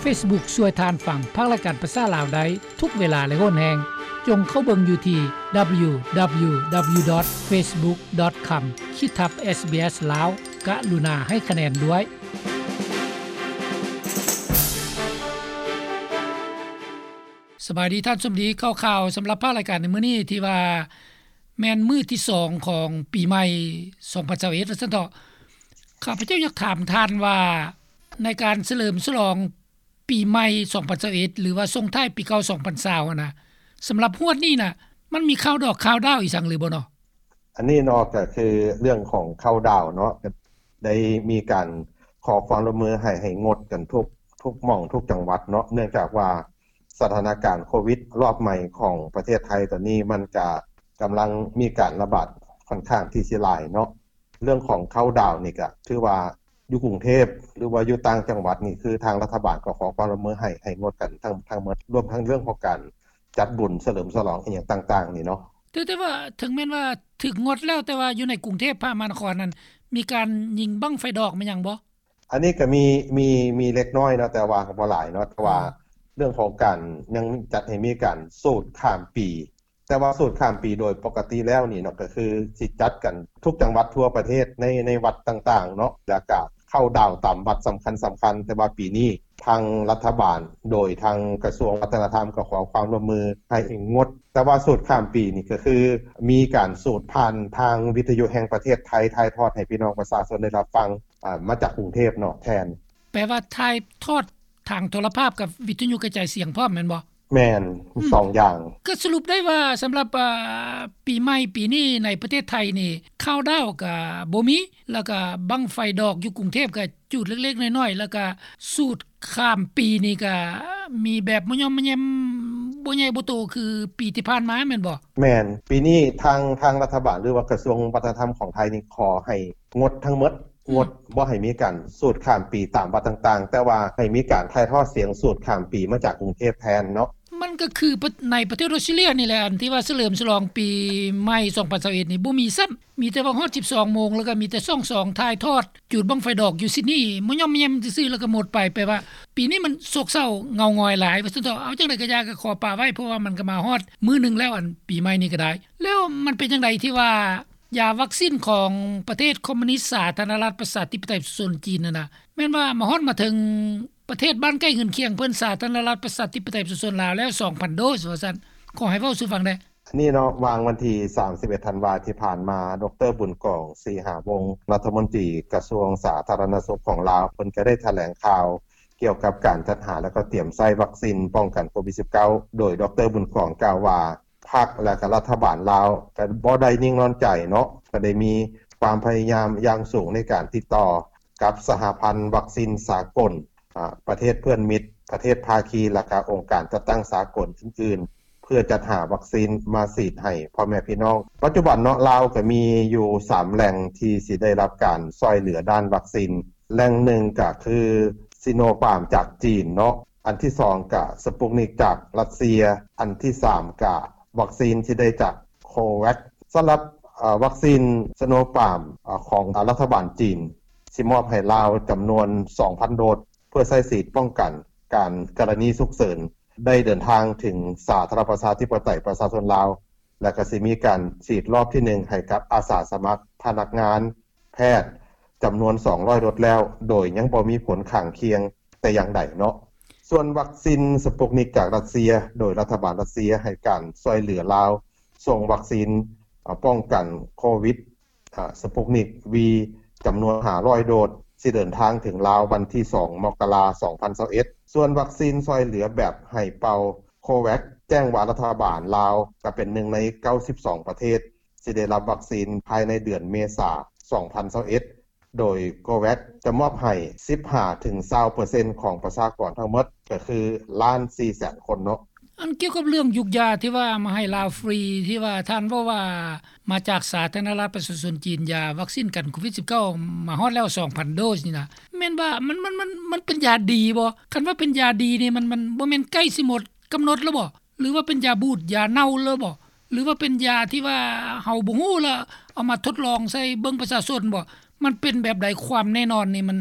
ເຟສບຸກ ຊ່ວຍທ່ານຟັງພາກລາຍການພາສາລາວໄດ້ທຸກເວລາ ແລະ ໂຫນແຮງ. ຈົ່ງເຂົ້າເບິ່ງຢູ່ທີ່ ດັບເບິນຢູດັບເບິນຢູດັບເບິນຢູ ດອດ ເຟສບຸກ ດອດ ຄອມ ຂີດທັບ ເອສບີເອສ ລາວ. ກະລຸນາໃຫ້ຄະແນນດ້ວຍ. ສະບາຍດີທ່ານສົມດີ. ຂ່າວໆສຳລັບພາກລາຍການໃນມື້ນີ້ ທີ່ວ່າແມ່ນມື້ທີສອງຂອງປີໃໝ່ສອງພັນຊາວເອັດ ວ່າຊັ້ນເຖາະ. ຂ້າພະເຈົ້າຢາກຖາມທ່ານວ່າ ໃນການສະເຫຼີມສະຫຼອງປີໃໝ່ສອງພັນຊາວເອັດ ຫຼືວ່າສົ່ງທ້າຍປີເກົ່າສອງພັນຊາວຫັ້ນນະ, ສຳລັບຮວດນີ້ນະ ມັນມີຂ່າວດອກຂ່າວດາວອີ່ຫຍັງຫຼືບໍ່ເນາະ? ອັນນີ້ເນາະ ກໍຄືເລື່ອງຂອງເຄົາດາວເນາະ, ກໍໄດ້ມີການຂໍຄວາມຮ່ວມມືໃຫ້ ໃຫ້ງົດກັນທຸກ ທຸກໝ່ອງທຸກຈັງຫວັດເນາະ, ເນື່ອງຈາກວ່າສະຖານະການໂຄວິດລອບໃໝ່ຂອງປະເທດໄທຕອນນີ້ ມັນກະກຳລັງມີການລະບາດຂ້ອນຂ້າງທີ່ຊິຫຼາຍເນາະ. ເລື່ອງຂອງເຄົາດາວນີ້ກະຖືວ່າຢູ່ກຸງເທບ ຫຼືວ່າຢູ່ຕ່າງຈັງຫວັດນີ້ ຄືທາງລັດຖະບານກໍຂໍຄວາມຮ່ວມມືໃຫ້ ໃຫ້ງົດກັນທັງ ທັງໝົດ ລວມທັງເລື່ອງຂອງການຈັດບຸນສະເຫຼີມສະຫຼອງອີ່ຫຍັງຕ່າງໆນີ້ເນາະ. ແຕ່ ແຕ່ວ່າເຖິງແມ່ນວ່າຖືກງົດແລ້ວ ແຕ່ວ່າຢູ່ໃນກຸງເທບ ພະມະຫານະຄອນນັ້ນ ມີການຍິງບັ້ງໄຟດອກແມ່ນຫຍັງບໍ່? ອັນນີ້ກໍມີ ມີ ມີເລັກນ້ອຍເນາະ ແຕ່ວ່າກໍບໍ່ຫຼາຍເນາະ. ແຕ່ວ່າ ອືມ ເລື່ອງຂອງການຍັງຈັດໃຫ້ມີການສູດຂ້າມປີ ແຕ່ວ່າສູດຂ້າມປີໂດຍປົກກະຕິແລ້ວນີ້ເນາະ ກໍຄືຊິຈັດກັນທຸກຈັງຫວັດທົ່ວປະເທດ ໃນ ໃນວັດຕ່າງໆເນາະ ແລ້ວກະເຄົາດາວຕາມວັດສຳຄັນໆ. ແຕ່ວ່າປີນີ້ທາງລັດຖະບານ ໂດຍທາງກະຊວງວັດທະນະທຳ ກໍຂໍຄວາມຮ່ວມມືໃຫ້ງົດ. ແຕ່ວ່າສູດຂ້າມປີນີ້ ກໍຄືມີການສູດຜ່ານທາງວິທະຍຸແຫ່ງປະເທດໄທ ຖ່າຍທອດໃຫ້ພີ່ນ້ອງປະຊາຊົນໄດ້ຮັບຟັງ ອາ ມາຈາກກຸງເທບເນາະແທນ. ແປວ່າຖ່າຍທອດທາງໂທລະພາບກັບວິທະຍຸກະຈາຍສຽງພ້ອມແມ່ນບໍ່? ແມ່ນ ອືມ ສອງຢ່າງ. ກໍສະຫຼຸບໄດ້ວ່າສຳລັບ ອາ ປີໃໝ່ປີນີ້ໃນປະເທດໄທນີ້ ເຄົາດາວກໍບໍ່ມີ ແລ້ວກໍບັ້ງໄຟດອກຢູ່ກຸງເທບກໍຈູດເລັກໆນ້ອຍໆ ແລ້ວກໍສູດຂ້າມປີນີ້ກໍມີແບບມະຍ່ອມມະແຍມ ບໍ່ໃຫຍ່ບໍ່ໂຕຄືປີທີ່ຜ່ານມາແມ່ນບໍ່? ແມ່ນ. ປີນີ້ທາງ ທາງລັດຖະບານ ຫຼືວ່າກະຊວງວັດທະນະທຳຂອງໄທນີ້ ຂໍໃຫ້ງົດທັງໝົດ ອືມ ງົດບໍ່ໃຫ້ມີການສູດຂ້າມປີຕາມວັດຕ່າງໆ ແຕ່ວ່າໃຫ້ມີການຖ່າຍທອດສຽງສູດຂ້າມປີມາຈາກກຸງເທບແທນເນາະ. ມັນກໍຄືປະ ໃນປະເທດອອສເຕຣເລຍນີ້ແຫຼະ ອັນທີ່ວ່າສະເຫຼີມສະຫຼອງປີໃໝ່ສອງພັນຊາວເອັດນີ້ ບໍ່ມີຊ້ຳ ມີແຕ່ວ່າຮອດສິບສອງໂມງ ແລ້ວກໍມີແຕ່ສອງສອງຖ່າຍທອດ ຈູດບັ້ງໄຟດອກຢູ່ຊິດນີ ມະຍ່ອມແຍມຊື່ໆ ແລ້ວກໍໝົດໄປ. ແປວ່າປີນີ້ມັນໂສກເສົ້າເຫງົາຫງອຍຫຼາຍວ່າຊັ້ນເຖາະ. ເອົາ ຈັ່ງໃດກໍຢ່າ ກໍຂໍປະໄວ້ ເພາະວ່າມັນກໍມາຮອດມື້ໜຶ່ງແລ້ວ ອັນປີໃໝ່ນີ້ກໍໄດ້. ແລ້ວມັນເປັນຈັ່ງໃດທີ່ວ່າ ຢາວັກຊິນຂອງປະເທດຄອມມູນິດສາທາລະນະລັດປະຊາທິປະໄຕປະຊາຊົນຈີນນັ້ນນະ ແມ່ນວ່າມາຮອດມາເຖິງປະເທດບ້ານໃກ້ເຮືອນຄຽງເພິ່ນ ສາທາລະນະລັດປະຊາທິປະໄຕປະຊາຊົນລາວແລ້ວ ສອງພັນໂດສວ່າຊັ້ນ. ຂໍໃຫ້ເວົ້າສູ່ຟັງແດ່ ອັນນີ້ເນາະ. ວ່າງວັນທີສາມສິບເອັດທັນວາທີ່ຜ່ານມາ ດອກເຕີ ບຸນກອງ ສີຫາວົງ ລັດຖະມົນຕີກະຊວງສາທາລະນະສຸກຂອງລາວ ເພິ່ນກໍໄດ້ຖະແຫຼງຂ່າວກ່ຽວກັບການຈັດຫາ ແລະ ກໍຕຽມໃຊ້ວັກຊິນປ້ອງກັນໂຄວິດສິບເກົ້າ ໂດຍ ດອກເຕີ ບຸນກອງ ກ່າວວ່າ ພັກ ແລະ ກະລັດຖະບານລາວກະບໍ່ໄດ້ນິ່ງນອນໃຈເນາະ, ກະໄດ້ມີຄວາມພະຍາຍາມຢ່າງສູງໃນການຕິດຕໍ່ກັບສະຫະພັນວັກຊິນສາກົນ, ອາ, ປະເທດເພື່ອນມິດ, ປະເທດພາຄີ ແລະ ກະອົງການຈັດຕັ້ງສາກົນອື່ນໆ ເພື່ອຈັດຫາວັກຊິນມາສີດໃຫ້ພໍ່ແມ່ພີ່ນ້ອງ. ປັດຈຸບັນເນາະ ລາວກະມີຢູ່ສາມແຫຼ່ງທີ່ຊິໄດ້ຮັບການຊ່ອຍເຫຼືອດ້ານວັກຊິນ. ແຫຼ່ງໜຶ່ງກະຄື ຊີໂນຟາມ ຈາກຈີນເນາະ, ອັນທີສອງກະສະປຸກນິກຈາກຣັດເຊຍ, ອັນທີສາມກະວັກຊິນທີ່ໄດ້ຈາກໂຄແວັກ. ສຳລັບ ເອີ ວັກຊິນຊີໂນຟາມ ເອີ ຂອງລັດຖະບານຈີນ ຊິມອບໃຫ້ລາວຈຳນວນສອງພັນໂດສ ເພື່ອໃຊ້ສີດປ້ອງກັນການ ກໍລະນີສຸກເສີນ ໄດ້ເດີນທາງເຖິງສາທາລະນະລັດປະຊາທິປະໄຕປະຊາຊົນລາວ ແລະ ກະຊິມີການສີດລອບທີໜຶ່ງໃຫ້ກັບອາສາສະໝັກ, ພະນັກງານ, ແພດ ຈຳນວນສອງຮ້ອຍໂດສແລ້ວ ໂດຍຍັງບໍ່ມີຜົນຂ້າງຄຽງແຕ່ຢ່າງໃດເນາະ. ສ່ວນວັກຊິນສະປຸກນິກຈາກຣັດເຊຍ ໂດຍລັດຖະບານຣັດເຊຍໃຫ້ການຊ່ວຍເຫຼືອລາວ ສົ່ງວັກຊິນ ອາ ປ້ອງກັນໂຄວິດ ອາ ສະປຸກນິກ V ຈຳນວນຫ້າຮ້ອຍໂດສ ຊິເດີນທາງເຖິງລາວວັນທີສອງ ມົກກະລາ ສອງພັນຊາວເອັດ. ສ່ວນວັກຊິນຊ່ວຍເຫຼືອແບບໃຫ້ເປົ່າ ໂຄແວັກ ແຈ້ງວ່າລັດຖະບານລາວກະເປັນໜຶ່ງໃນເກົ້າສິບສອງປະເທດ ຊິໄດ້ຮັບວັກຊິນພາຍໃນເດືອນເມສາ ສອງພັນຊາວເອັດ ໂດຍໂຄແວັກຈະມອບໃຫ້ສິບຫ້າເຖິງຊາວເປີເຊັນຂອງປະຊາກອນທັງໝົດ ກໍຄືລ້ານສີ່ແສນຄົນເນາະ. ອັນກ່ຽວກັບເລື່ອງຢູກຢາທີ່ວ່າມາໃຫ້ລາວຟຣີ ທີ່ວ່າທ່ານເວົ້າວ່າມາຈາກສາທາລະນະລັດປະຊາຊົນຈີນ ຢາວັກຊິນກັນໂຄວິດສິບເກົ້າ ມາຮອດແລ້ວສອງພັນໂດສນີ້ນະ ແມ່ນວ່າມັນ ມັນ ມັນ ມັນເປັນຢາດີບໍ່? ຄັນວ່າເປັນຢາດີນີ້ ມັນ ມັນບໍ່ແມ່ນໃກ້ຊິໝົດກຳນົດແລ້ວບໍ່? ຫຼືວ່າເປັນຢາບູດ ຢາເນົ່າເລີຍບໍ່? ຫຼືວ່າເປັນຢາທີ່ວ່າເຮົາບໍ່ຮູ້ລະເອົາມາທົດລອງໃສ່ເບິ່ງປະຊາຊົນບໍ່? ມັນເປັນແບບໃດ? ຄວາມແນ່ນອນນີ້ມັນ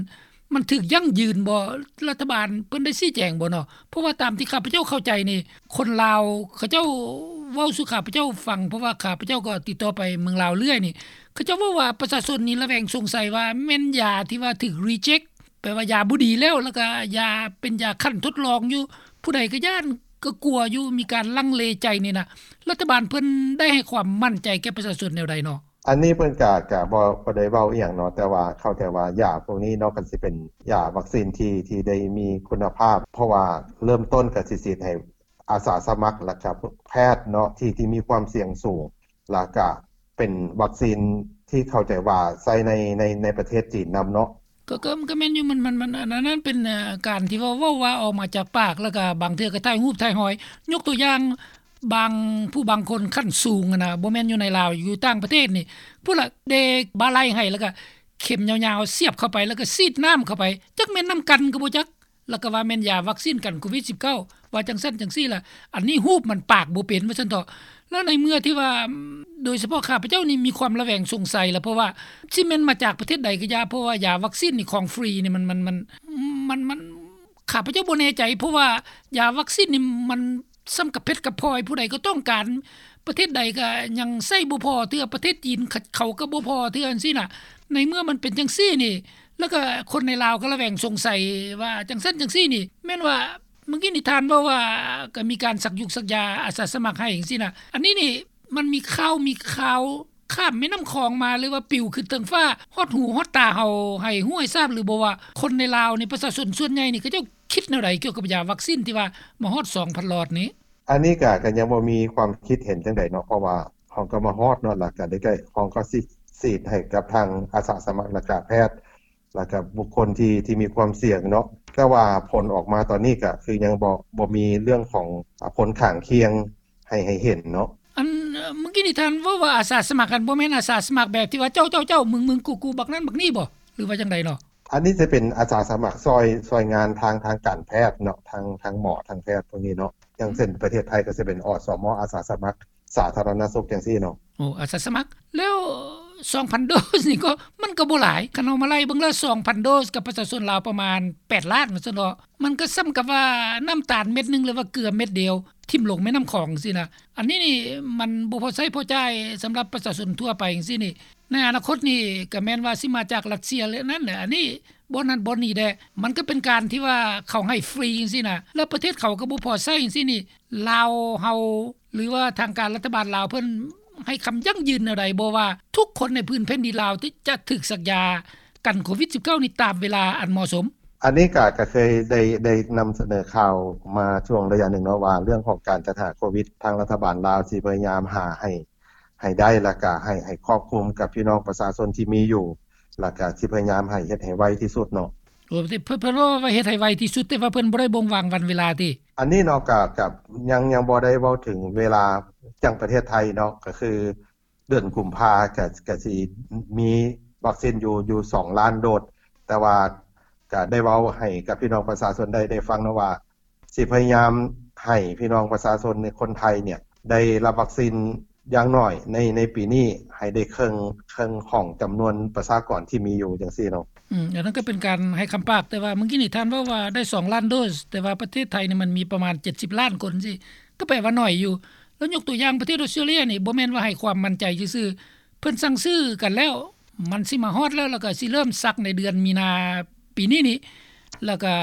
ມັນຖືກຢັ້ງຢືນບໍ່? ລັດຖະບານເພິ່ນໄດ້ຊີ້ແຈງບໍ່ເນາະ? ເພາະວ່າຕາມທີ່ຂ້າພະເຈົ້າເຂົ້າໃຈນີ້ ຄົນລາວເຂົາເຈົ້າເວົ້າສູ່ຂ້າພະເຈົ້າຟັງ ເພາະວ່າຂ້າພະເຈົ້າກໍຕິດຕໍ່ໄປເມືອງລາວເລື້ອຍນີ້ ເຂົາເຈົ້າເວົ້າວ່າປະຊາຊົນນີ້ລະແວງສົງໄສວ່າແມ່ນຢາທີ່ວ່າຖືກ reject ແປວ່າຢາບໍ່ດີແລ້ວ ແລ້ວກໍຢາເປັນຢາຂັ້ນທົດລອງຢູ່ ຜູ້ໃດກໍຢ້ານກໍກົວຢູ່ ມີການລັງເລໃຈນີ້ນະ ລັດຖະບານເພິ່ນໄດ້ໃຫ້ຄວາມໝັ້ນໃຈແກ່ປະຊາຊົນແນວໃດເນາະ? ອັນນີ້ເພິ່ນກະ ກະບໍ່ ບໍ່ໄດ້ເວົ້າອີ່ຫຍັງເນາະ ແຕ່ວ່າເຂົ້າໃຈວ່າຢາພວກນີ້ເນາະ ຄັນຊິເປັນຢາວັກຊີນທີ່ ທີ່ໄດ້ມີຄຸນນະພາບ ເພາະວ່າເລີ່ມຕົ້ນກໍຊິສີດໃຫ້ອາສາສະໝັກ ແລ້ວກະແພດເນາະ ທີ່ ທີ່ມີຄວາມສ່ຽງສູງ ແລ້ວກະເປັນວັກຊີນທີ່ເຂົ້າໃຈວ່າໃຊ້ໃນ ໃນ ໃນປະເທດຈີນນຳເນາະ. ກໍ ກໍ ກໍແມ່ນຢູ່ ມັນ ມັນ ມັນ ອັນນັ້ນເປັນ ເອີ ການທີ່ວ່າເວົ້າວ່າອອກມາຈາກປາກ ແລ້ວກໍບາງເທື່ອກໍຖ່າຍຮູບຖ່າຍຮອຍ ຍົກຕົວຢ່າງ ບາງ ຜູ້ບາງຄົນຂັ້ນສູງຫັ້ນນະ ບໍ່ແມ່ນຢູ່ໃນລາວ ຢູ່ຕ່າງປະເທດນີ້ ພຸ້ນລະ ເດບ່າໄຫຼ່ໃຫ້ ແລ້ວກໍເຂັມຍາວໆສຽບເຂົ້າໄປ ແລ້ວກໍສີດນ້ຳເຂົ້າໄປ ຈັກແມ່ນນ້ຳກັນກໍບໍ່ຈັກ ແລ້ວກໍວ່າແມ່ນຢາວັກຊີນກັນໂຄວິດສິບເກົ້າ ວ່າຈັ່ງຊັ້ນຈັ່ງຊີ້ລະ ອັນນີ້ຮູບມັນປາກບໍ່ເປັນວ່າຊັ້ນເຖາະ. ແລ້ວໃນເມື່ອທີ່ວ່າ ໂດຍສະເພາະຂ້າພະເຈົ້ານີ້ມີຄວາມລະແວງສົງໄສລະ ເພາະວ່າຊິແມ່ນມາຈາກປະເທດໃດກໍຢ່າ ເພາະວ່າຢາວັກຊີນນີ້ຂອງຟຣີນີ້ ມັນ ມັນ ມັນ ມັນ ຂ້າພະເຈົ້າບໍ່ແນ່ໃຈ ເພາະວ່າຢາວັກຊີນນີ້ມັນສ່ຳກະເພັດກະພອຍ ຜູ້ໃດກໍຕ້ອງການ ປະເທດໃດກໍຍັງໃຊ້ບໍ່ພໍເທື່ອ ປະເທດຈີນເຂົາ ເຂົາກໍບໍ່ພໍເທື່ອຈັ່ງຊີ້ນະ. ໃນເມື່ອມັນເປັນຈັ່ງຊີ້ນີ້ ແລ້ວກໍຄົນໃນລາວກໍລະແວງສົງໄສວ່າຈັ່ງຊັ້ນຈັ່ງຊີ້ນີ້ ແມ່ນວ່າ ເມື່ອກີ້ນີ້ທ່ານເວົ້າວ່າ ກໍມີການສັກຍຸກສັກຢາອາສາສະໝັກໃຫ້ຈັ່ງຊີ້ນະ ອັນນີ້ນີ້ ມັນມີຂ່າວ ມີຂ່າວຂ້າມແມ່ນ້ຳຂອງມາ ຫຼືວ່າປິວຂຶ້ນເທິງຟ້າ ຮອດຫູຮອດຕາເຮົາ ໃຫ້ຮູ້ໃຫ້ຊາບຫຼືບໍ່ວ່າ ຄົນໃນລາວນີ້ ປະຊາຊົນສ່ວນໃຫຍ່ນີ້ ເຂົາເຈົ້າຄິດແນວໃດກ່ຽວກັບຢາວັກຊີນທີ່ວ່າມາຮອດສອງພັນຫຼອດນີ້? ອັນນີ້ກະ ກະຍັງບໍ່ມີຄວາມຄິດເຫັນຈັ່ງໃດເນາະ ເພາະວ່າເຮົາກໍມາຮອດເນາະ ແລ້ວກະໄດ້ ເຮົາກໍຊິສີດໃຫ້ກັບທາງອາສາສະໝັກ ແລ້ວກະແພດ ແລ້ວກະບຸກຄົນທີ່ ທີ່ມີຄວາມສ່ຽງເນາະ ແຕ່ວ່າຜົນອອກມາຕອນນີ້ກະຄືຍັງບໍ່ ບໍ່ມີເລື່ອງຂອງ ອາ ຜົນຂ້າງຄຽງໃຫ້ ໃຫ້ເຫັນເນາະ. ອັນ ເອີ ເມື່ອກີ້ນີ້ທ່ານເວົ້າວ່າອາສາສະໝັກຫັ້ນ ບໍ່ແມ່ນອາສາສະໝັກແບບທີ່ວ່າເຈົ້າ ເຈົ້າ ເຈົ້າ ມຶງ ມຶງ ກູ ກູ ບັກນັ້ນບັກນີ້ບໍ່ ຫຼືວ່າຈັ່ງໃດເນາະ? ອັນນີ້ຈະເປັນອາສາສະໝັກຊ່ອຍ ຊ່ອຍງານທາງ ທາງການແພດເນາະ ທາງ ທາງໝໍ ທາງແພດພວກນີ້ເນາະ ຢ່າງເຊັ່ນປະເທດໄທກໍຈະເປັນ ອສມ ອາສາສະໝັກ ສາທາລະນະສຸກຈັ່ງຊີ້ເນາະ. ໂອ້ ອາສາສະໝັກ ແລ້ວສອງພັນໂດສນີ້ກໍ ມັນກໍບໍ່ຫຼາຍ ຄັນເຮົາມາໄລ່ເບິ່ງແລ້ວ ສອງພັນໂດສກັບປະຊາຊົນລາວປະມານແປດລ້ານວ່າຊັ້ນເນາະ ມັນກໍສ່ຳກັບວ່ານ້ຳຕານເມັດໜຶ່ງ ຫຼືວ່າເກືອເມັດດຽວ ຖິ້ມລົງແມ່ນ້ຳຂອງຊີ້ນະ. ອັນນີ້ນີ້ມັນບໍ່ພໍໃຊ້ພໍຈ່າຍສຳລັບປະຊາຊົນທົ່ວໄປຈັ່ງຊີ້ນີ້ ໃນອະນາຄົດນີ້ກໍແມ່ນວ່າຊິມາຈາກຣັດເຊຍ ແລະ ນັ້ນແຫຼະ ອັນນີ້ບ່ອນນັ້ນບ່ອນນີ້ແດ່ ມັນກໍເປັນການທີ່ວ່າເຂົາໃຫ້ຟຣີຈັ່ງຊີ້ນະ ແລ້ວປະເທດເຂົາກໍບໍ່ພໍໃຊ້ຈັ່ງຊີ້ນີ້ ລາວເຮົາ ຫຼືວ່າທາງການລັດຖະບານລາວເພິ່ນໃຫ້ຄຳຢັ້ງຢືນແນວໃດບໍ່ວ່າ ທຸກຄົນໃນພື້ນແຜ່ນດິນລາວທີ່ຈະຖືກສັກຢາກັນໂຄວິດສິບເກົ້ານີ້ຕາມເວລາອັນເໝາະສົມ? ອັນນີ້ກະ ກະເຄີຍໄດ້ ໄດ້ນຳສະເໜີຂ່າວມາຊ່ວງໄລຍະໜຶ່ງເນາະ ວ່າເລື່ອງຂອງການຈັດຫາໂຄວິດ ທາງລັດຖະບານລາວຊິພະຍາຍາມຫາໃຫ້ ໃຫ້ໄດ້ ແລ້ວກະໃຫ້ ໃຫ້ຄອບຄຸມກັບພີ່ນ້ອງປະຊາຊົນທີ່ມີຢູ່ ແລ້ວກະຊິພະຍາຍາມໃຫ້ເຮັດໃຫ້ໄວທີ່ສຸດເນາະ. ໂອ້ ເພິ່ນ ເພິ່ນເວົ້າວ່າເຮັດໃຫ້ໄວທີ່ສຸດ ແຕ່ວ່າເພິ່ນບໍ່ໄດ້ບົ່ງບອກວັນເວລາຕິ? ອັນນີ້ເນາະ ກະ ກະຍັງ ຍັງບໍ່ໄດ້ເວົ້າເຖິງເວລາ ຢ່າງປະເທດໄທເນາະ ກະຄືເດືອນກຸມພາ ກະ ກະຊິມີວັກຊີນຢູ່ ຢູ່ສອງລ້ານໂດສ ແຕ່ວ່າກະໄດ້ເວົ້າໃຫ້ກັບພີ່ນ້ອງປະຊາຊົນໄດ້ ໄດ້ຟັງເນາະວ່າ ຊິພະຍາຍາມໃຫ້ພີ່ນ້ອງປະຊາຊົນໃນຄົນໄທເນຍ ໄດ້ຮັບວັກຊີນຢ່າງໜ້ອຍໃນ ໃນປີນີ້ ໃຫ້ໄດ້ເຄິ່ງ ເຄິ່ງຂອງຈຳນວນປະຊາກອນທີ່ມີຢູ່ຈັ່ງຊີ້ເນາະ. ອືມ ອັນນັ້ນກໍເປັນການໃຫ້ຄຳປາກ ແຕ່ວ່າມື້ກີ້ນີ້ທ່ານເວົ້າວ່າໄດ້ສອງລ້ານໂດສ ແຕ່ວ່າປະເທດໄທນີ້ມັນມີປະມານເຈັດສິບລ້ານຄົນຊີ້ ກໍແປວ່າໜ້ອຍຢູ່. ແລ້ວຍົກຕົວຢ່າງປະເທດອອສເຕຣເລຍນີ້ ບໍ່ແມ່ນວ່າໃຫ້ຄວາມໝັ້ນໃຈຊື່ໆ ເພິ່ນສັ່ງຊື້ກັນແລ້ວ ມັນຊິມາຮອດແລ້ວ ແລ້ວກໍຊິເລີ່ມສັກໃນເດືອນມີນາປີນີ້ນີ້ ແລ້ວກໍ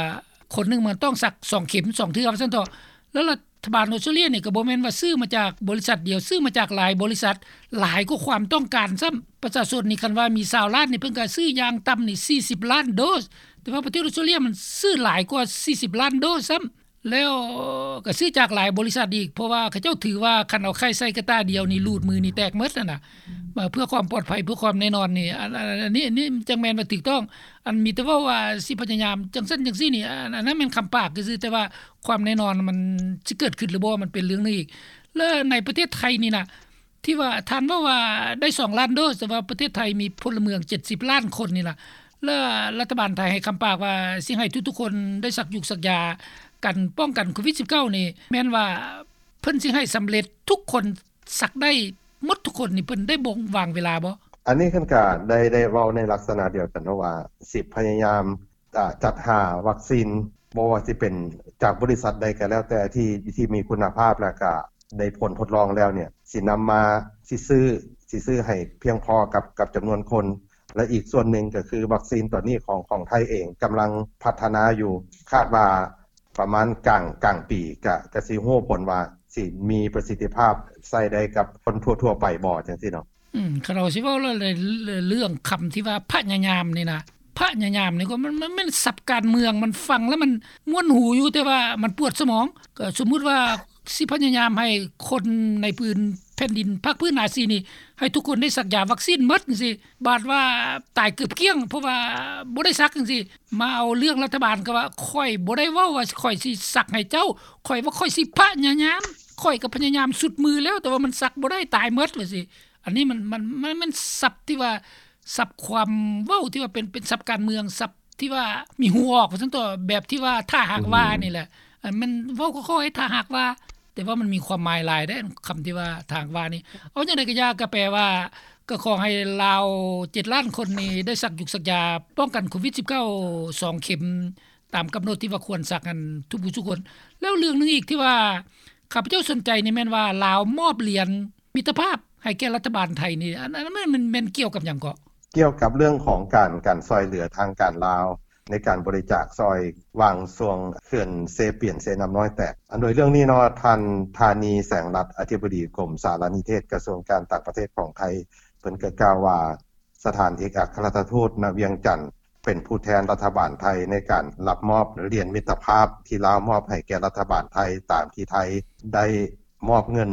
ຄົນໜຶ່ງມັນຕ້ອງສັກສອງເຂັມ ສອງເທື່ອວ່າຊັ້ນເຖາະ. ແລ້ວລັດຖະບານອອສເຕຣເລຍນີ້ກໍບໍ່ແມ່ນວ່າຊື້ມາຈາກບໍລິສັດດຽວ ຊື້ມາຈາກຫຼາຍບໍລິສັດ ຫຼາຍກວ່າຄວາມຕ້ອງການຊ້ຳ. ປະຊາຊົນນີ້ ຄັນວ່າມີຊາວລ້ານນີ້ ເພິ່ນກໍຊື້ຢ່າງຕ່ຳນີ້ສີ່ສິບລ້ານໂດສ ແຕ່ວ່າປະເທດອອສເຕຣເລຍມັນຊື້ຫຼາຍກວ່າສີ່ສິບລ້ານໂດສຊ້ຳ. ແລ້ວກໍຊື້ຈາກຫຼາຍບໍລິສັດອີກ ເພາະວ່າເຂົາເຈົ້າຖືວ່າຄັນເອົາໄຂ່ໃສ່ກະຕ່າດຽວນີ້ ຮູດມືນີ້ແຕກໝົດຫັ້ນນະ ເພື່ອຄວາມປອດໄພ ເພື່ອຄວາມແນ່ນອນນີ້ ອັນ ອັນ ອັນນີ້ ອັນນີ້ຈັ່ງແມ່ນວ່າຖືກຕ້ອງ. ອັນມີແຕ່ເວົ້າວ່າຊິພະຍາຍາມຈັ່ງຊັ້ນຈັ່ງຊີ້ນີ້ ອັນ ອັນນັ້ນແມ່ນຄຳປາກຊື່ໆ ແຕ່ວ່າຄວາມແນ່ນອນມັນຊິເກີດຂຶ້ນຫຼືບໍ່ ມັນເປັນເລື່ອງໜຶ່ງອີກ. ແລ້ວໃນປະເທດໄທນີ້ນະ ທີ່ວ່າທ່ານເວົ້າວ່າໄດ້ສອງລ້ານໂດສ ແຕ່ວ່າປະເທດໄທມີພົນລະເມືອງເຈັດສິບລ້ານຄົນນີ້ນະ ແລ້ວລັດຖະບານໄທໃຫ້ຄຳປາກວ່າຊິໃຫ້ທຸກໆຄົນໄດ້ສັກຢູກສັກຢາກັນປ້ອງກັນໂຄວິດສິບເກົ້ານີ້ ແມ່ນວ່າເພິ່ນຊິໃຫ້ສຳເລັດທຸກຄົນ ສັກໄດ້ໝົດທຸກຄົນນີ້ ເພິ່ນໄດ້ບົ່ງວາງເວລາບໍ່? ອັນນີ້ເພິ່ນກະໄດ້ ໄດ້ເວົ້າໃນລັກສະນະດຽວກັນເນາະວ່າ ຊິພະຍາຍາມ ອາ ຈັດຫາວັກຊີນ ບໍ່ວ່າຊິເປັນຈາກບໍລິສັດໃດກໍແລ້ວແຕ່ ທີ່ ທີ່ມີຄຸນນະພາບ ແລ້ວກໍໄດ້ຜົນທົດລອງແລ້ວເນ່ຍ ຊິນຳມາ ຊິຊື້ ຊິຊື້ໃຫ້ພຽງພໍກັບ ກັບຈຳນວນຄົນ ແລະ ອີກສ່ວນໜຶ່ງກໍຄືວັກຊີນຕົວນີ້ຂອງ ຂອງໄທເອງກຳລັງພັດທະນາຢູ່ ຄາດວ່າປະມານກາງ ກາງປີ ກະ ກະຊິຮູ້ຜົນວ່າຊິມີປະສິດທິພາບໃຊ້ໄດ້ກັບຄົນທົ່ວໆໄປບໍ່ ຈັ່ງຊີ້ເນາະ. ອືມ ຄັນເຮົາຊິເວົ້າແລ້ວ ເລື່ອງຄຳທີ່ວ່າພະຍາຍາມນີ້ນະ ພະຍາຍາມນີ້ກໍມັນ ມັນແມ່ນສັບການເມືອງ ມັນຟັງແລ້ວມັນມ່ວນຫູຢູ່ ແຕ່ວ່າມັນປວດສະໝອງ. ກໍສົມມຸດວ່າຊິພະຍາຍາມໃຫ້ຄົນໃນພື້ນແຜ່ນດິນພາກພື້ນອາຊີນີ້ ໃຫ້ທຸກຄົນໄດ້ສັກຢາວັກຊີນໝົດຈັ່ງຊີ້ ບາດວ່າຕາຍເກືອບກ້ຽງ ເພາະວ່າບໍ່ໄດ້ສັກຈັ່ງຊີ້. ມາເອົາເລື່ອງລັດຖະບານ ກໍວ່າຂ້ອຍບໍ່ໄດ້ເວົ້າວ່າຂ້ອຍຊິສັກໃຫ້ເຈົ້າ ຂ້ອຍວ່າຂ້ອຍຊິພະຍາຍາມ ຂ້ອຍກໍພະຍາຍາມສຸດມືແລ້ວ ແຕ່ວ່າມັນສັກບໍ່ໄດ້ ຕາຍໝົດວ່າຊີ້. ອັນນີ້ມັນ ມັນ ມັນ ມັນສັບທີ່ວ່າ ສັບຄວາມເວົ້າທີ່ວ່າເປັນ ເປັນສັບການເມືອງ ສັບທີ່ວ່າມີຫູອອກວ່າຊັ້ນເຖາະ ແບບທີ່ວ່າຖ້າຫາກວ່ານີ້ແຫຼະ. ອັນມັນເວົ້າຄ່ອຍໆ ຖ້າຫາກວ່າ ແຕ່ວ່າມັນມີຄວາມໝາຍຫຼາຍເດ້ ຄຳທີ່ວ່າຖ້າຫາກວ່ານີ້. ເອົາຈັ່ງໃດກໍຢ່າ ກໍແປວ່າ ກໍຂໍໃຫ້ລາວເຈັດລ້ານຄົນນີ້ໄດ້ສັກຢູກສັກຢາປ້ອງກັນໂຄວິດສິບເກົ້າ ສອງເຂັມ ຕາມກຳນົດທີ່ວ່າຄວນສັກຫັ້ນທຸກຜູ້ທຸກຄົນ. ແລ້ວເລື່ອງໜຶ່ງອີກທີ່ວ່າ ຂ້າພະເຈົ້າສົນໃຈນີ້ແມ່ນວ່າ ລາວມອບຫຼຽນມິດຕະພາບໃຫ້ແກ່ລັດຖະບານໄທນີ້ ອັນ ອັນນັ້ນແມ່ນ ແມ່ນ ແມ່ນກ່ຽວກັບຫຍັງເກາະ? ກ່ຽວກັບເລື່ອງຂອງການ ການຊ່ອຍເຫຼືອທາງການລາວ ໃນການບໍລິຈາກຊ່ອຍຫວ່າງຊ່ວງເຂື່ອນເຊປຽນເຊນ້ຳນ້ອຍແຕກ. ອັນໂດຍເລື່ອງນີ້ເນາະ ທ່ານ ທານີ ແສງລັດ ອະທິບໍດີກົມສາລະນິເທດ ກະຊວງການຕ່າງປະເທດຂອງໄທ ເພິ່ນກໍກ່າວວ່າ ສະຖານເອກອັກຄະລັດຖະທູດ ນະ ວຽງຈັນ ເປັນຜູ້ແທນລັດຖະບານໄທໃນການຮັບມອບຫຼຽນມິດຕະພາບທີ່ລາວມອບໃຫ້ແກ່ລັດຖະບານໄທ ຕາມທີ່ໄທໄດ້ມອບເງິນ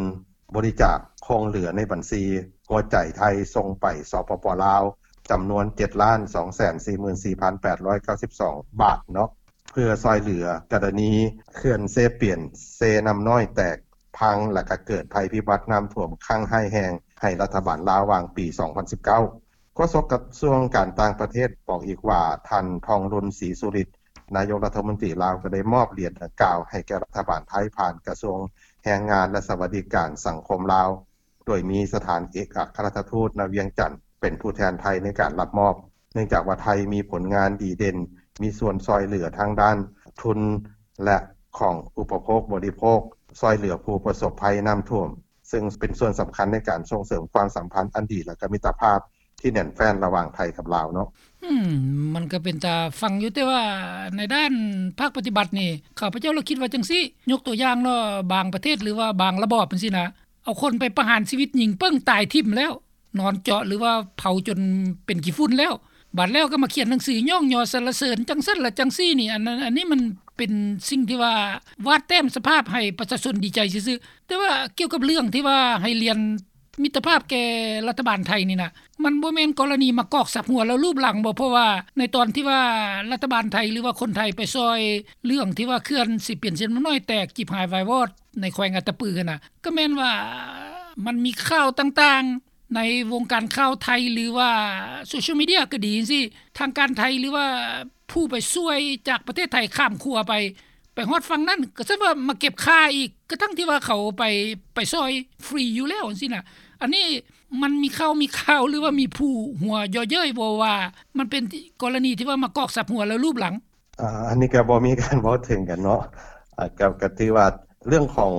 ບໍລິຈາກຄົງເຫຼືອໃນບັນຊີຫົວໃຈໄທສົ່ງໄປ ສປປ ລາວ ຈຳນວນເຈັດລ້ານສອງແສນສີ່ໝື່ນສີ່ພັນແປດຮ້ອຍເກົ້າສິບສອງບາດເນາະ ເພື່ອຊ່ອຍເຫຼືອກໍລະນີເຂື່ອນເຊປຽນເຊນ້ຳນ້ອຍແຕກພັງ ແລະ ກະເກີດໄພພິບັດນ້ຳຖ້ວມຄັ້ງຮ້າຍແຮງໃຫ້ລັດຖະບານລາວຫວ່າງປີສອງພັນສິບເກົ້າ. ໂຄສົກກະຊວງການຕ່າງປະເທດບອກອີກວ່າ ທ່ານ ທອງລຸນ ສີສຸລິດ ນາຍົກລັດຖະມົນຕີລາວ ກໍໄດ້ມອບຫຼຽນດັ່ງກ່າວໃຫ້ແກ່ລັດຖະບານໄທ ຜ່ານກະຊວງແຮງງານ ແລະ ສະຫວັດດີການສັງຄົມລາວ ໂດຍມີສະຖານເອກອັກຄະລັດຖະທູດ ນະ ວຽງຈັນ ເປັນຜູ້ແທນໄທໃນການຮັບມອບ ເນື່ອງຈາກວ່າໄທມີຜົນງານດີເດັ່ນ ມີສ່ວນຊ່ອຍເຫຼືອທາງດ້ານທຶນ ແລະ ຂອງອຸປະໂພກບໍລິໂພກ ຊ່ອຍເຫຼືອຜູ້ປະສົບໄພນ້ຳຖ້ວມ ເຊິ່ງເປັນສ່ວນສຳຄັນໃນການສົ່ງເສີມຄວາມສຳພັນອັນດີ ແລະ ກໍມິດຕະພາບທີ່ແໜ້ນແຟ້ນລະຫວ່າງໄທກັບລາວເນາະ. ອືມ ມັນກໍເປັນຕາຟັງຢູ່ ແຕ່ວ່າໃນດ້ານພາກປະຕິບັດນີ້ ຂ້າພະເຈົ້າລະຄິດວ່າຈັ່ງຊີ້ ຍົກຕົວຢ່າງເນາະ ບາງປະເທດ ຫຼືວ່າບາງລະບອບຈັ່ງຊີ້ນະ ເອົາຄົນໄປປະຫານຊີວິດ ຍິງປຶ້ງຕາຍຖິ້ມແລ້ວ ນອນເຈາະ ຫຼືວ່າເຜົາຈົນເປັນຂີ້ຝຸ່ນແລ້ວ ບາດແລ້ວກໍມາຂຽນໜັງສືຍ້ອງຍໍສັນລະເສີນ ຈັ່ງຊັ້ນລະຈັ່ງຊີ້ນີ້ ອັນນັ້ນ ອັນນີ້ມັນເປັນສິ່ງທີ່ວ່າວາດແຕ້ມສະພາບໃຫ້ປະຊາຊົນດີໃຈຊື່ໆ. ແຕ່ວ່າກ່ຽວກັບເລື່ອງທີ່ວ່າໃຫ້ຫຼຽນມິດຕະພາບແກ່ລັດຖະບານໄທນີ້ນະ ມັນບໍ່ແມ່ນກໍລະນີມາກອກສັບຫົວແລ້ວລູບຫຼັງບໍ? ເພາະວ່າໃນຕອນທີ່ວ່າລັດຖະບານໄທ ຫຼືວ່າຄົນໄທໄປຊ່ອຍເລື່ອງທີ່ວ່າເຂື່ອນເຊປຽນເຊນ້ຳນ້ອຍແຕກ ຈີບຫາຍວາຍວອດ ໃນແຂວງອັດຕະປືຫັ້ນນະ ກໍແມ່ນວ່າມັນມີຂ່າວຕ່າງໆ ໃນວົງການຂ່າວໄທ ຫຼືວ່າໂຊຊຽວມີເດຍກໍດີຈັ່ງຊີ້ ທາງການໄທ ຫຼືວ່າຜູ້ໄປຊ່ວຍຈາກປະເທດໄທຂ້າມຂົວໄປ ໄປຮອດຝັ່ງນັ້ນ ກໍຊັ້ນວ່າມາເກັບຄ່າອີກ ກະທັ່ງທີ່ວ່າເຂົາໄປ ໄປຊ່ອຍຟຣີຢູ່ແລ້ວຈັ່ງຊີ້ນະ. ອັນນີ້ມັນມີຂ່າວ ມີຂ່າວ ຫຼືວ່າມີຜູ້ຫົວເຢາະເຍີ້ຍບໍ່ວ່າ ມັນເປັນກໍລະນີທີ່ວ່າມາກອກສັບຫົວແລ້ວລູບຫຼັງ? ອາ ອັນນີ້ກໍບໍ່ມີການເວົ້າເຖິງກັນເນາະ ອາ ກໍ ກໍຖືວ່າເລື່ອງຂອງ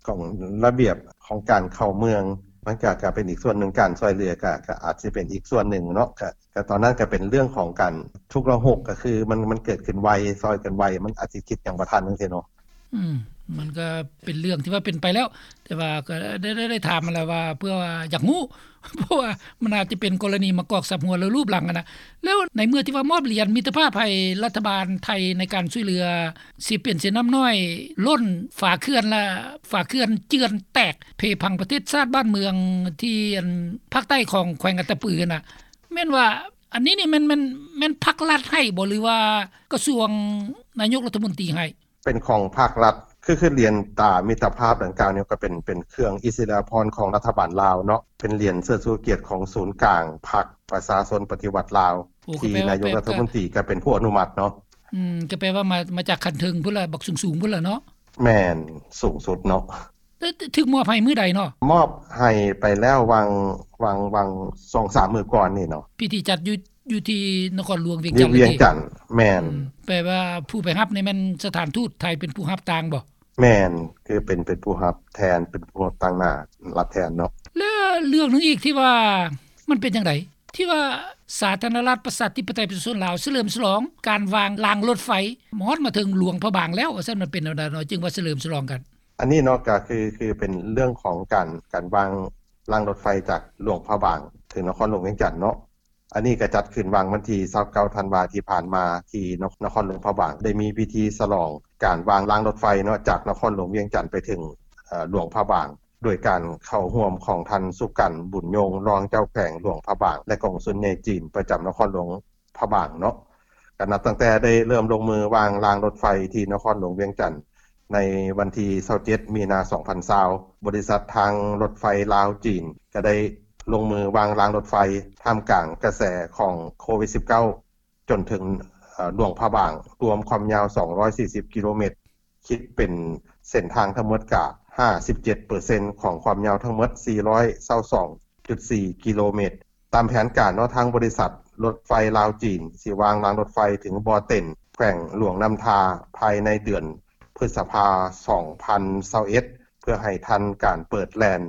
ຂອງລະບຽບຂອງການເຂົ້າເມືອງ ມັນກໍ ກໍເປັນອີກສ່ວນໜຶ່ງ ການຊ່ອຍເຫຼືອກໍ ກໍອາດຊິເປັນອີກສ່ວນໜຶ່ງເນາະ ກໍ ກໍຕອນນັ້ນກໍເປັນເລື່ອງຂອງການຊຸກລະຫຸກ ກໍຄືມັນ ມັນເກີດຂຶ້ນໄວ ຊ່ອຍກັນໄວ ມັນອາດຊິຄິດຫຍັງບໍ່ທັນຈັ່ງຊີ້ເນາະ. ອືມ ມັນກໍເປັນເລື່ອງທີ່ວ່າເປັນໄປແລ້ວ ແຕ່ວ່າກໍໄດ້ ໄດ້ ໄດ້ຖາມຫັ້ນແຫຼະວ່າ ເພື່ອວ່າຢາກຮູ້ ເພາະວ່າມັນອາດຈະເປັນກໍລະນີມາກອກສັບຫົວແລ້ວລູບຫຼັງຫັ້ນນະ. ແລ້ວໃນເມື່ອທີ່ວ່າມອບຫຼຽນມິດຕະພາບໃຫ້ລັດຖະບານໄທໃນການຊ່ວຍເຫຼືອເຊປຽນເຊນ້ຳນ້ອຍລົ້ນຝາເຂື່ອນ ແລະ ຝາເຂື່ອນເຈື່ອນແຕກເພພັງປະເທດຊາດບ້ານເມືອງທີ່ອັນພາກໃຕ້ຂອງແຂວງອັດຕະປືຫັ້ນນະ ແມ່ນວ່າອັນນີ້ນີ້ແມ່ນ ແມ່ນ ແມ່ນພັກລັດໃຫ້ບໍ່ ຫຼືວ່າກະຊວງນາຍົກລັດຖະມົນຕີໃຫ້? ເປັນຂອງພາກລັດ ຄື ຄືຫຼຽນຕາມິດຕະພາບດັ່ງກ່າວນີ້ ກໍເປັນ ເປັນເຄື່ອງອິດສະລິຍະພອນຂອງລັດຖະບານລາວເນາະ ເປັນຫຼຽນເຊີດຊູກຽດຂອງສູນກາງພັກປະຊາຊົນປະຕິວັດລາວ ໂອ້ ທີ່ນາຍົກລັດຖະມົນຕີກໍເປັນຜູ້ອະນຸມັດເນາະ. ອືມ ກໍແປວ່າມາ ມາຈາກຂັ້ນເທິງພຸ້ນລະ ບັກສູງໆພຸ້ນລະເນາະ. ແມ່ນ ສູງສຸດເນາະ. ຖືກມອບໃຫ້ມື້ໃດເນາະ? ມອບໃຫ້ໄປແລ້ວຫວ່າງ ຫວ່າງ ຫວ່າງສອງສາມມື້ກ່ອນນີ້ເນາະ. ພິທີຈັດຢູ່ ຢູ່ທີ່ນະຄອນຫຼວງວຽງຈັນ ຢູ່ວຽງຈັນ. ແມ່ນ. ອືມ ແປວ່າຜູ້ໄປຮັບນີ້ແມ່ນສະຖານທູດໄທເປັນຜູ້ຮັບຕ່າງບໍ່? ແມ່ນ ຄືເປັນ ເປັນຜູ້ຮັບແທນ ເປັນຜູ້ຮັບຕາງໜ້າ ຮັບແທນເນາະ. ແລ້ວເລື່ອງໜຶ່ງອີກທີ່ວ່າ ມັນເປັນຈັ່ງໃດ ທີ່ວ່າສາທາລະນະລັດປະຊາທິປະໄຕປະຊາຊົນລາວສະເຫຼີມສະຫຼອງການວາງລາງລົດໄຟ ຮອດມາເຖິງຫຼວງພະບາງແລ້ວ ວ່າຊັ້ນ ມັນເປັນແນວໃດເນາະ ຈຶ່ງວ່າສະເຫຼີມສະຫຼອງກັນ? ອັນນີ້ເນາະ ກໍຄື ຄືເປັນເລື່ອງຂອງການ ການວາງລາງລົດໄຟຈາກຫຼວງພະບາງເຖິງນະຄອນຫຼວງວຽງຈັນເນາະ. ອັນນີ້ກໍຈັດຂຶ້ນຫວ່າງວັນທີຊາວເກົ້າທັນວາທີ່ຜ່ານມາ ທີ່ນະຄອນຫຼວງພະບາງ ໄດ້ມີພິທີສະຫຼອງການວາງລາງລົດໄຟເນາະ ຈາກນະຄອນຫຼວງວຽງຈັນໄປເຖິງ ເອີ ຫຼວງພະບາງ ໂດຍການເຂົ້າຮ່ວມຂອງທ່ານ ສຸກັນ ບຸນຍົງ ຮອງເຈົ້າແຂວງຫຼວງພະບາງ ແລະ ກອງສຸນໃຫຍ່ຈີນປະຈຳນະຄອນຫຼວງພະບາງເນາະ. ກໍນັບຕັ້ງແຕ່ໄດ້ເລີ່ມລົງມືວາງລາງລົດໄຟທີ່ນະຄອນຫຼວງວຽງຈັນ ໃນວັນທີຊາວເຈັດ ມີນາ ສອງພັນຊາວ ບໍລິສັດທາງລົດໄຟລາວ-ຈີນ ກໍໄດ້ລົງມືວາງລາງລົດໄຟ ທ່າມກາງກະແສຂອງໂຄວິດສິບເກົ້າ ຈົນເຖິງ ເອີ ຫຼວງພະບາງ ລວມຄວາມຍາວສອງຮ້ອຍສີ່ສິບກິໂລແມັດ ຄິດເປັນເສັ້ນທາງທັງໝົດກະຫ້າສິບເຈັດເປີເຊັນຂອງຄວາມຍາວທັງໝົດສີ່ຮ້ອຍຊາວສອງຈຸດສີ່ກິໂລແມັດ. ຕາມແຜນການເນາະ ທາງບໍລິສັດລົດໄຟລາວ-ຈີນ ຊິວາງລາງລົດໄຟເຖິງບໍ່ເຕັນ ແຂວງຫຼວງນ້ຳທາ ພາຍໃນເດືອນພຶດສະພາ ສອງພັນຊາວເອັດ ເພື່ອໃຫ້ທັນການເປີດແລ່ນ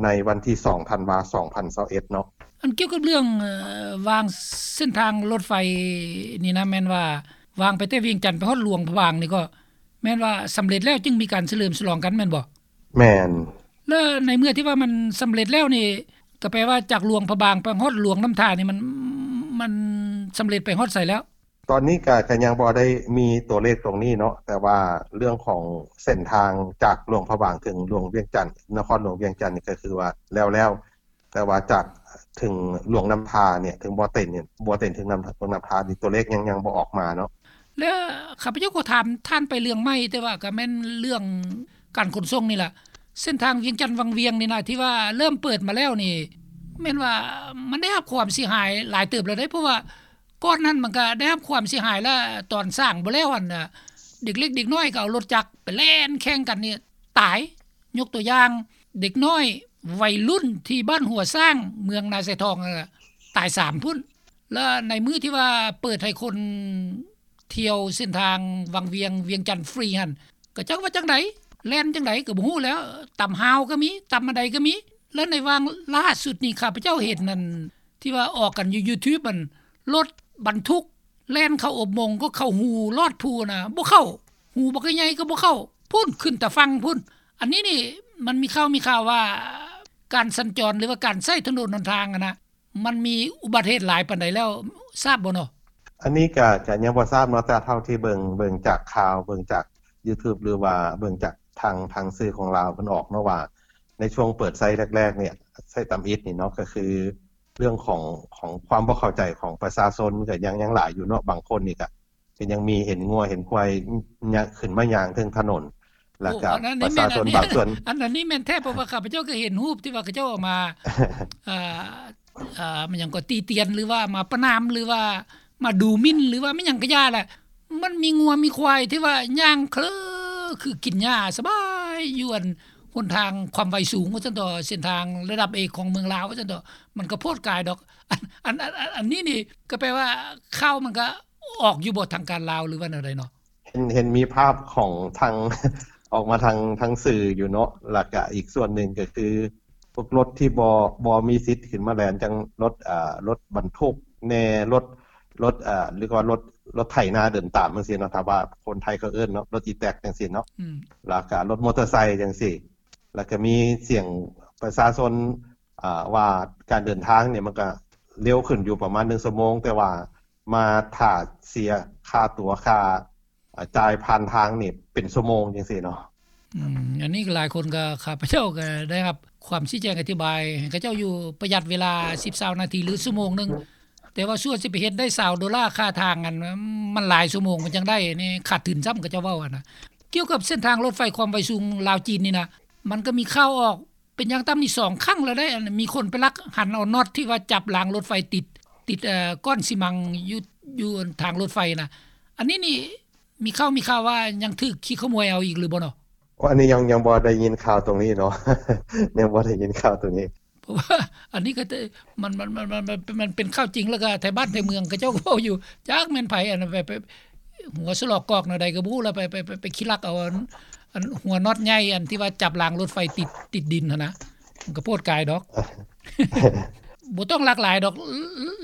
ໃນວັນທີສອງທັນວາ ສອງພັນຊາວເອັດເນາະ. ອັນກ່ຽວກັບເລື່ອງ ເອີ ວາງເສັ້ນທາງລົດໄຟນີ້ນະ ແມ່ນວ່າວາງໄປແຕ່ວຽງຈັນໄປຮອດຫຼວງພະບາງນີ້ ກໍແມ່ນວ່າສຳເລັດແລ້ວຈຶ່ງມີການສະເຫຼີມສະຫຼອງກັນແມ່ນບໍ່? ແມ່ນ. ແລ້ວໃນເມື່ອທີ່ວ່າມັນສຳເລັດແລ້ວນີ້ ກໍແປວ່າຈາກຫຼວງພະບາງໄປຮອດຫຼວງນ້ຳທານີ້ ມັນ ມັນສຳເລັດໄປຮອດໃສແລ້ວ? ຕອນນີ້ກະ ກະຍັງບໍ່ໄດ້ມີຕົວເລກຕົງນີ້ເນາະ ແຕ່ວ່າເລື່ອງຂອງເສັ້ນທາງຈາກຫຼວງພະບາງເຖິງຫຼວງວຽງຈັນ ນະຄອນຫຼວງວຽງຈັນນີ້ ກະຄືວ່າແລ້ວໆ ແຕ່ວ່າຈາກເຖິງຫຼວງນ້ຳທານີ້ ເຖິງບໍ່ເຕັນນີ້ ບໍ່ເຕັນເຖິງນ້ຳ ຫຼວງນ້ຳທານີ້ ຕົວເລກຍັງ ຍັງບໍ່ອອກມາເນາະ. ແລ້ວຂ້າພະເຈົ້າກໍຖາມທ່ານໄປເລື່ອງໃໝ່ ແຕ່ວ່າກະແມ່ນເລື່ອງການຂົນສົ່ງນີ້ລະ ເສັ້ນທາງວຽງຈັນວັງວຽງນີ້ນະ ທີ່ວ່າເລີ່ມເປີດມາແລ້ວນີ້ ແມ່ນວ່າມັນໄດ້ຮັບຄວາມເສຍຫາຍຫຼາຍເຕີບແລ້ວເດ້ ເພາະວ່າ ກ່ອນນັ້ນມັນກະໄດ້ຮັບຄວາມເສຍຫາຍ ແລະ ຕອນສ້າງບໍ່ແລ້ວຫັ້ນນະ ເດັກເລັກເດັກນ້ອຍກໍເອົາລົດຈັກໄປແລ່ນແຂ່ງກັນນີ້ຕາຍ. ຍົກຕົວຢ່າງ ເດັກນ້ອຍໄວລຸ້ນທີ່ບ້ານຫົວຊ້າງ ເມືອງນາຊາຍທອງ ຕາຍສາມພຸ້ນ. ແລະ ໃນມື້ທີ່ວ່າເປີດໃຫ້ຄົນທ່ຽວເສັ້ນທາງວັງວຽງ ວຽງຈັນຟຣີຫັ້ນ ກະຈັກວ່າຈັ່ງໃດ ແລ່ນຈັ່ງໃດກະບໍ່ຮູ້ແລ້ວ ຕຳຮາວກະມີ ຕຳອັນໃດກະມີ. ແລະ ໃນຫວ່າງລ່າສຸດນີ້ ຂ້າພະເຈົ້າເຫັນນັ້ນ ທີ່ວ່າອອກກັນຢູ່ຢູທູບ ອັນລົດບັນທຸກແລ່ນເຂົ້າອົບມົງ ກໍເຂົ້າຮູລອດພູນະ ບໍ່ເຂົ້າ ຮູບັກໃຫຍ່ກໍບໍ່ເຂົ້າພຸ້ນ ຂຶ້ນຕາຝັ່ງພຸ້ນ. ອັນນີ້ນີ້ ມັນມີຂ່າວ ມີຂ່າວວ່າ ການສັນຈອນ ຫຼືວ່າການໃຊ້ຖະໜົນຫົນທາງຫັ້ນນະ ມັນມີອຸບັດເຫດຫຼາຍປານໃດແລ້ວ ຊາບບໍ່ເນາະ? ອັນນີ້ກະ ກະຍັງບໍ່ຊາບເນາະ ແຕ່ເທົ່າທີ່ເບິ່ງ ເບິ່ງຈາກຂ່າວ ເບິ່ງຈາກຢູທູບ ຫຼືວ່າເບິ່ງຈາກທາງ ທາງສື່ຂອງລາວເພິ່ນອອກເນາະ ວ່າໃນຊ່ວງເປີດໃຊ້ແລກໆນີ້ ໃຊ້ຕຳອິດນີ້ເນາະ ກະຄືເລື່ອງຂອງ ຂອງຄວາມບໍ່ເຂົ້າໃຈຂອງປະຊາຊົນ ມັນກະຍັງ ຍັງຫຼາຍຢູ່ເນາະ. ບາງຄົນນີ້ກະ ກະຍັງມີເຫັນງົວເຫັນຄວາຍຍາ ຂຶ້ນມາຍ່າງເທິງຖະໜົນ ແລ້ວກະປະຊາຊົນບາງສ່ວນ ອັນນັ້ນນີ້ແມ່ນແທ້ ເພາະວ່າຂ້າພະເຈົ້າກໍເຫັນຮູບທີ່ວ່າເຂົາເຈົ້າເອົາມາ ເອີ ເອີ ມັນຫຍັງກໍຕິຕຽນ ຫຼືວ່າມາປະນາມ ຫຼືວ່າມາດູໝິ່ນ ຫຼືວ່າແມ່ນຫຍັງກະຢ່າແຫຼະ ມັນມີງົວມີຄວາຍທີ່ວ່າຍ່າງເຄີ ຄືກິນຫຍ້າສະບາຍຢູ່ ອັນຫົນທາງຄວາມໄວສູງວ່າຊັ້ນເຖາະ ເສັ້ນທາງລະດັບເອກຂອງເມືອງລາວວ່າຊັ້ນເຖາະ ມັນກໍໂພດກາຍດອກ. ອັນ ອັນ ອັນ ອັນນີ້ນີ້ກໍແປວ່າຂ່າວມັນກໍອອກຢູ່ບໍ່ ທາງການລາວ ຫຼືວ່າແນວໃດເນາະ? ເຫັນ ເຫັນມີພາບຂອງທາງ ອອກມາທາງ ທາງສື່ຢູ່ເນາະ ແລ້ວກະອີກສ່ວນໜຶ່ງກໍຄື ພວກລົດທີ່ບໍ່ ບໍ່ມີສິດຂຶ້ນມາແລ່ນ ຈັ່ງລົດ ເອີ ລົດບັນທຸກແດ່ ລົດ ລົດ ເອີ ຫຼືວ່າລົດ ລົດໄຖນາເດີນຕາມຈັ່ງຊີ້ເນາະ ຖ້າວ່າຄົນໄທເຂົາເອີ້ນເນາະ ລົດອີແຕັກຈັ່ງຊີ້ເນາະ ອືມ ແລ້ວກະລົດມໍເຕີໄຊຈັ່ງຊີ້ ແລ້ວກະມີສຽງປະຊາຊົນ ເອີ ວ່າການເດີນທາງນີ້ມັນກະເລັວຂຶ້ນຢູ່ປະມານໜຶ່ງຊົ່ວໂມງ ແຕ່ວ່າມາຖ້າເສຍຄ່າຕົ໋ວ ຄ່າ ອາ ຈ່າຍຜ່ານທາງນີ້ເປັນຊົ່ວໂມງຈັ່ງຊີ້ເນາະ. ອືມ ອັນນີ້ກໍຫຼາຍຄົນກໍ ຂ້າພະເຈົ້າກໍໄດ້ຮັບຄວາມຊີ້ແຈງອະທິບາຍໃຫ້ເຂົາເຈົ້າຢູ່ ປະຢັດເວລາສິບ ຊາວນາທີ ຫຼື ຊົ່ວໂມງໜຶ່ງ ແຕ່ວ່າສ່ວນຊິໄປເຮັດໄດ້ຊາວໂດລາຄ່າທາງ ອັນ ມັນຫຼາຍຊົ່ວໂມງມັນຈັ່ງໄດ້ ອັນນີ້ຂາດທຶນຊ້ຳ ເຂົາເຈົ້າເວົ້າຫັ້ນນະ. ກ່ຽວກັບເສັ້ນທາງລົດໄຟຄວາມໄວສູງລາວ-ຈີນນີ້ນະ ມັນກໍມີຂ່າວອອກ ເປັນຢ່າງຕ່ຳນີ້ສອງຄັ້ງແລ້ວເດ້ ອັນມີຄົນໄປລັກຫັນເອົານັອດທີ່ວ່າຈັບລາງລົດໄຟຕິດ ຕິດ ເອີ ກ້ອນຊີມັງຢູ່ ຢູ່ທາງລົດໄຟນະ ອັນນີ້ນີ້ມີຂ່າວ ມີຂ່າວວ່າຍັງຖືກຂີ້ຂະໂມຍເອົາອີກຫຼືບໍ່ເນາະ? ໂອ ອັນນີ້ຍັງ ຍັງບໍ່ໄດ້ຍິນຂ່າວຕົງນີ້ເນາະ ຍັງບໍ່ໄດ້ຍິນຂ່າວຕົງນີ້. ເພາະວ່າອັນນີ້ກໍ ມັນ ມັນ ມັນ ມັນ ມັນເປັນຂ່າວຈິງ ແລ້ວກໍໄທບ້ານໄທເມືອງເຂົາເຈົ້າກໍເວົ້າຢູ່ ຈັກແມ່ນໃຜ ອັນໄປ ໄປຫົວສະຫຼອກກອກແນວໃດກໍບໍ່ຮູ້ ແລ້ວໄປ ໄປ ໄປ ໄປຂີ້ລັກເອົາອັນ ອັນຫົວນັອດໃຫຍ່ ອັນທີ່ວ່າຈັບລາງລົດໄຟຕິດ ຕິດດິນຫັ້ນນະ ມັນກໍໂພດກາຍດອກ. ບໍ່ຕ້ອງລັກຫຼາຍດອກ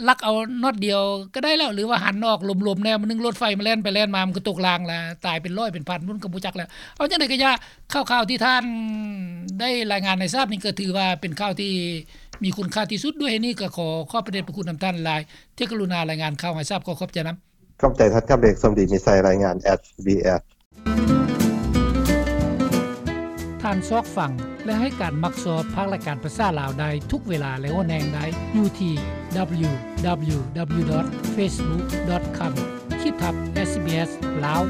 ລັກເອົານັອດດຽວກໍໄດ້ແລ້ວ ຫຼືວ່າຫັນອອກ ຫຼົມໆແນວໜຶ່ງ ລົດໄຟມັນແລ່ນໄປແລ່ນມາ ມັນກໍຕົກລາງລະ ຕາຍເປັນຮ້ອຍເປັນພັນພຸ້ນ ກໍບໍ່ຈັກແລ້ວ. ເອົາຈັ່ງໃດກໍຢ່າ ຂ່າວໆທີ່ທ່ານໄດ້ລາຍງານໃຫ້ຊາບນີ້ ກໍຖືວ່າເປັນຂ່າວທີ່ມີຄຸນຄ່າທີ່ສຸດ. ດ້ວຍເຫດນີ້ກໍຂໍຂອບພະເດດພະຄຸນນຳທ່ານຫຼາຍ ທີ່ກະລຸນາລາຍງານຂ່າວໃຫ້ຊາບ. ຂໍຂອບໃຈນຳ. ຂອບໃຈທ່ານຄຳເອກ ສົມດີມີໄຊ ລາຍງານ ເອສບີເອສ. ທ່ານຊອກຟັງ ແລະ ໃຫ້ການມັກຊອບພາກລາຍການພາສາລາວໄດ້ທຸກເວລາ ແລະ ໂອແນງໄດ້ຢູ່ທີ່ www.facebook.com ຂີດທັບ SBS ລາວ.